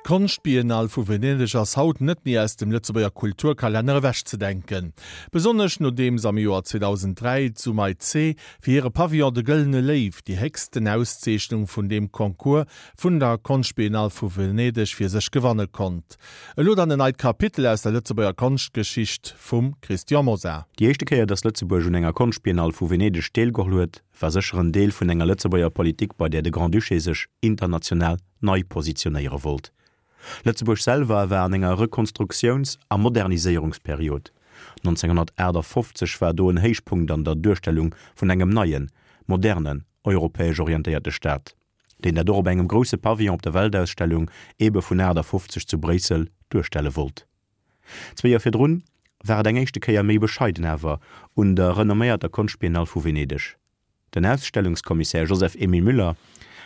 D'Konschtbiennale vu Venedeg ass haut net méi aus dem Lëtzebuerger Kulturkalenner ewechzedenken. Besonnesch nodeems am Joer 2003 d'Sumay C. fir hire Pavillon De Gëllene Léiw déi héchsten Auszeechnung vun deem Concours vun der Konschtbiennale vu Venedeg fir sech gewanne konnt. Elo dann en neit Kapitel aus der Lëtzebuerger Konschtgeschicht vum Christian Mosar. Déi éischte Kéier, datt Lëtzebuerg un enger Konschtbiennale vu Venedeg deelgeholl huet, war sécher en Deel vun enger Lëtzebuerger Politik, bei där de Grand-Duché sech international nei positionéiere wollt. Lëtzebuerg selwer war an enger Rekonstruktiouns a Moderniséierungsperiod. 1958 war do en Héichpunkt an der Duerstellung vun engem neien, modernen, europäesch orientéierte Staat, deen dat och op engem grousse Pavillon op der Weltausstellung ebe vun 58 zu Bréissel duerstelle wollt. Zwee Joer virdrun war et eng éischte Kéier méi bescheiden awer un der renomméierter Konschtbiennale vu Venedeg. Den Ausstellungskommissär Joseph-Emile Müller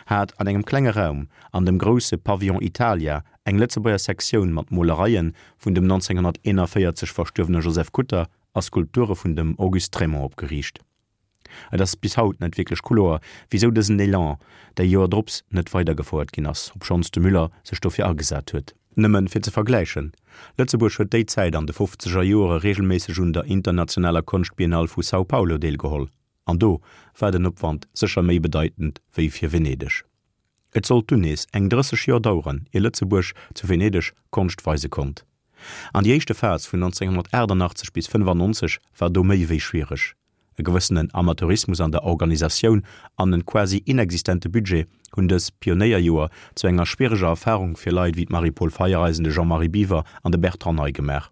hat an engem klenge Raum an dem grousse Pavillon Italia eng Lëtzebuerger Sektioun mat Molereie vun dem 1941 verstuerwene Joseph Kutter a Skulpture vun dem Auguste Trémont opgeriicht. Et ass bis haut net wierklech kloer, wisou dësen Elan déi Joer drops net weidergefouert ginn ass, obschonns de Müller sech dofir agesat huet. Nëmmen fir ze vergläichen, Lëtzebuerg huet déi Zäit an de fofzeger Joere regelméisseg un der internationaler Konschtbiennale vu São Paulo deelgeholl, an do war den Opwand sécher méi bedeitend wéi fir Venedeg. Et sollt dunn nees eng 30 Joer daueren, ier Lëtzebuerg zu Venedeg Konscht weise konnt. An déi éischte Phas vun 1988 bis 95 war do méi wéi schwiereg. E gewëssenen Amateurismus an der Organisatioun an en quasi inexistente Budget hunn dës Pionéierjoer zu enger schwiereger Erfarung fir Leit wéi d'Marie-Paule Feiereisen, de Jean-Marie Biwer an de Bertrand Ney gemaach.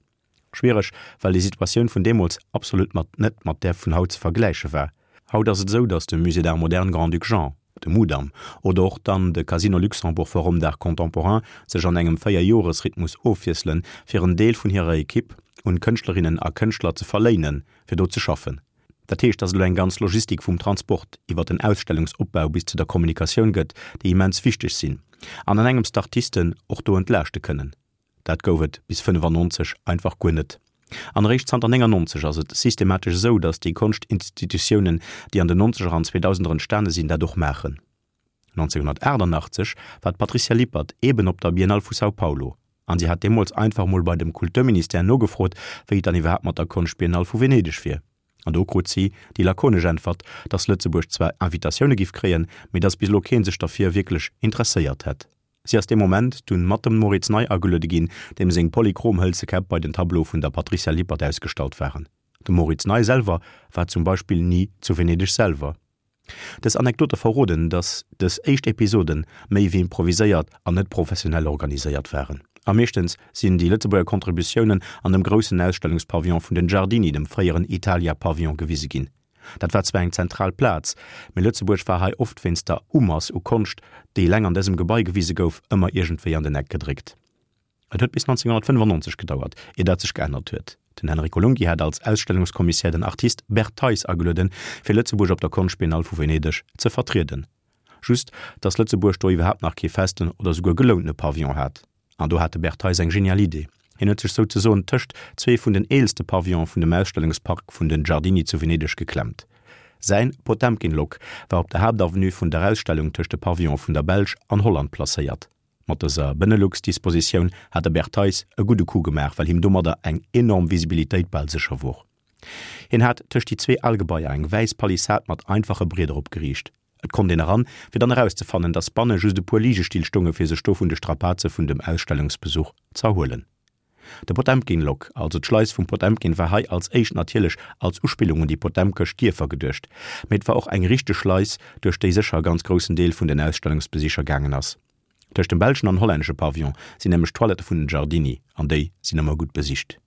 Schwiereg, well déi Situatioun vun deemools absolut mat net mat där vun haut ze vergläiche war. Haut ass et esou, datt de Musée d'Art moderne Grand-Duc Jean, de Mudam, oder och dann de Casino Luxembourg Forum d'Art Contemporain sech an engem Véierjoresrhythmus ofwiesselen, fir en Deel vun hirer Ekipp un Kënschtlerinnen a Kënschtler ze verléinen, fir do ze schaffen. Dat heescht, datt et elo eng ganz Logistik vum Transport iwwer den Ausstellungsopbau bis zu der Kommunikatioun gëtt, déi immens wichteg sinn an an engems d'Artisten och do entlaaschte kënnen. Dat gouf et bis 95 einfach guer net. An eréischt zanter 99 ass et systematesch esou, datt déi Konschtinstitutiounen, déi an den Nonzeger an Zweedausender entstane sinn, dat och maachen. 1988 war d'Patricia Lippert eeben op der Biennale vu São Paulo an si hat deemools einfach mol bei dem Kulturministère nogefrot, wéi et dann iwwerhaapt mat der Konschtbiennale vu Venedeg wier. An do krut si déi lakonesch Äntwert, datt Lëtzebuerg zwar Invitatioune giff kréien, mee datt bis elo kee sech derfir wierklech interesséiert hätt. Si ass dee Moment dunn mat dem Moritz Ney ageluede ginn, deem seng polychrom hëlze Käpp bei den Tableaue vun der Patricia Lippert ausgestallt waren. De Moritz Ney selwer war zum Beispill ni zu Venedeg selwer. Dës Anekdote verroden, datt dës éischt Episoden méi wéi improviséiert an net professionell organiséiert waren. A meeschtens sinn déi Lëtzebuerger Contributiounen an dem groussen Ausstellungspavillon vun den Giardini, dem fréieren Italia-Pavillon, gewise ginn. Dat war zwar eng zentral Plaz, mee Lëtzebuerg war hei oft wéinst der Umass u Konscht, déi eleng an dësem Gebai gewise gouf, ëmmer iergendwéi an den Eck gedréckt. Et huet bis 1995 gedauert, ier dat sech geännert huet. Den Enrico Lunghi hat als Ausstellungskommissär den Artist Bert Theis agelueden, fir Lëtzebuerg op der Konschtbiennale vu Venedeg ze vertrieden. Just, datt Lëtzebuerg do iwwerhaapt nach kee festen oder souguer gelountene Pavillon hat. An do hat de Bert Theis eng genial Idee. Hien huet sech souzesoen tëscht zwee vun den eelste Pavillone vun dem Ausstellungspark vun den Giardini zu Venedeg geklemmt. Säin Potemkin-Lok war op der Haaptavenue vun der Ausstellung tëscht de Pavillone vun der Belsch an Holland placéiert. Mat dëser Benelux-Dispositioun hat de Bert Theis e gudde Coup gemaach, well him domadder eng enorm Visibilitéit bal sécher wor. Hien hat tëscht déi zwee al Gebaier eng wäiss Palissad mat einfache Brieder opgeriicht. Et konnt een eran, fir dann erauszefannen, dass banne just e puer Ligestill stonge fir sech do vun de Strapaze vun dem Ausstellungsbesuch z'erhuelen. De Potemkin-Lock, also d'Schleis vum Potemkin, war hei als éischt natierlech als Uspillung un déi potemkesch Dierfer geduecht, mee et war och eng richteg Schleis, duerch déi sécher e ganz groussen Deel vun den Ausstellungsbesicher gaangen ass. Tëscht dem belschen an hollännesche Pavillon sinn nämlech d'Toilette vun den Giardini, an déi sinn ëmmer gutt besicht.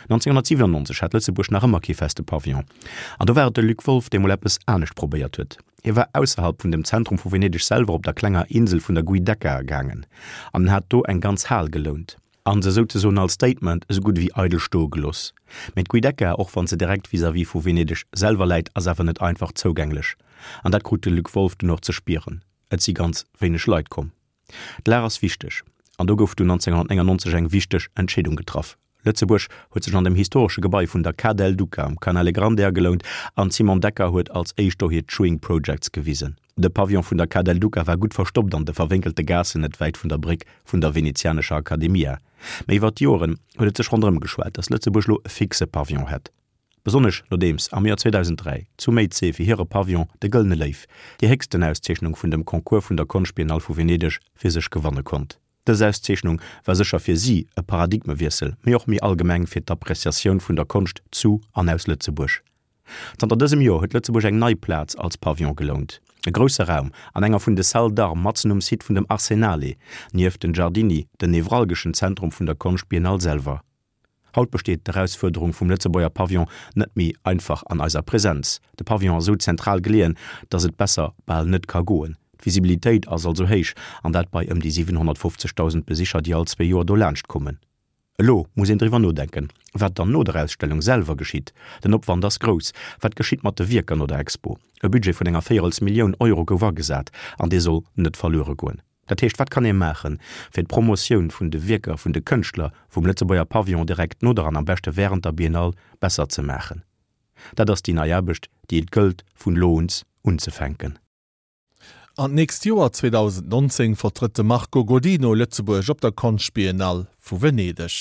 1997 hat Lëtzebuerg nach ëmmer kee feste Pavillon. An do war et de Luc Wolff, dee mol eppes anescht probéiert huet. Hie war ausserhalb vun dem Zentrum vu Venedeg selwer op der klenger Insel vun der Giudecca gaangen an en hat do eng ganz Hal gelount an se souzesoen als Statement esou gutt ewéi eidel stoe gelooss. Mee d'Giudecca, och wann se direkt vis-à-vis vu Venedeg selwer läit, ass awer net einfach zougänglech. An dat krut de Luc Wolff dunn och ze spieren. Et si ganz wéineg Leit komm. D'Lag ass wichteg, an do gouf dunn 1999 eng wichteg Entscheedung getraff. Lëtzebuerg huet sech an dem historesche Gebai vun der Ca del Duca um Canale Grande agelount an d'Simone Decker huet als éischt do hir Chewing Projects gewisen. De Pavillon vun der Ca del Duca war gutt verstoppt an de verwénkelte Gaassen net wäit vun der Bréck vun der venezianescher Accademia. Mee iwwer d'Joeren huet et sech ronderëm geschwat, datt Lëtzebuerg lo e fixe Pavillon hätt. Besonnesch nodeems am Joer 2003 zu Méizee fir hire Pavillon de Gëllene Léiw, déi héchsten Auszeechnung vun dem Concours vun der Konschtbiennale vu Venedeg, fir sech gewanne konnt. Dës Auszeechnung war sécher fir si e Paradigmewiessel, mee och méi allgemeng fir d'Appreciatioun vun der Konscht zu an aus Lëtzebuerg. Zanter dësem Joer huet Lëtzebuerg eng nei Plaz als Pavillon gelount, e grousse Raum an enger vun de Salles d'Armes matzen um Site vun dem Arsenale, nieft den Giardini, den nevralgeschen Zentrum vun der Konschtbiennale selwer. Haut besteet d'Erausfuerderung vum Lëtzebuerger Pavillon net méi einfach an eiser Präsenz. De Pavillon ass esou zentral geleeën, datt et besser bal net ka goen. D'Visibilitéit ass also héich, an dat bei ëm déi 750.000 Besicher, déi all zwee Joer do laanscht kommen. Elo muss een driwwer nodenken, wat dann no der Ausstellung selwer geschitt. Den Opwand ass grouss. Wat geschitt mat de Wierker no der Expo? E Budget vun enger Véierels Millioun Euro gouf agesat, an dee soll net verluere goen. Dat heescht, wat kann ee maachen, fir d'Promotioun vun de Wierker vun de Kënschtler vum Lëtzebuerger Pavillon direkt no der an am beschte während der Biennale besser ze maachen? Dat ass déi nei Aarbecht, déi et gëllt vun elo uns unzefänken. An d'nächst Joer 2019 vertrëtt de Marco Godino Lëtzebuerg op der Konschtbiennale vu Venedeg.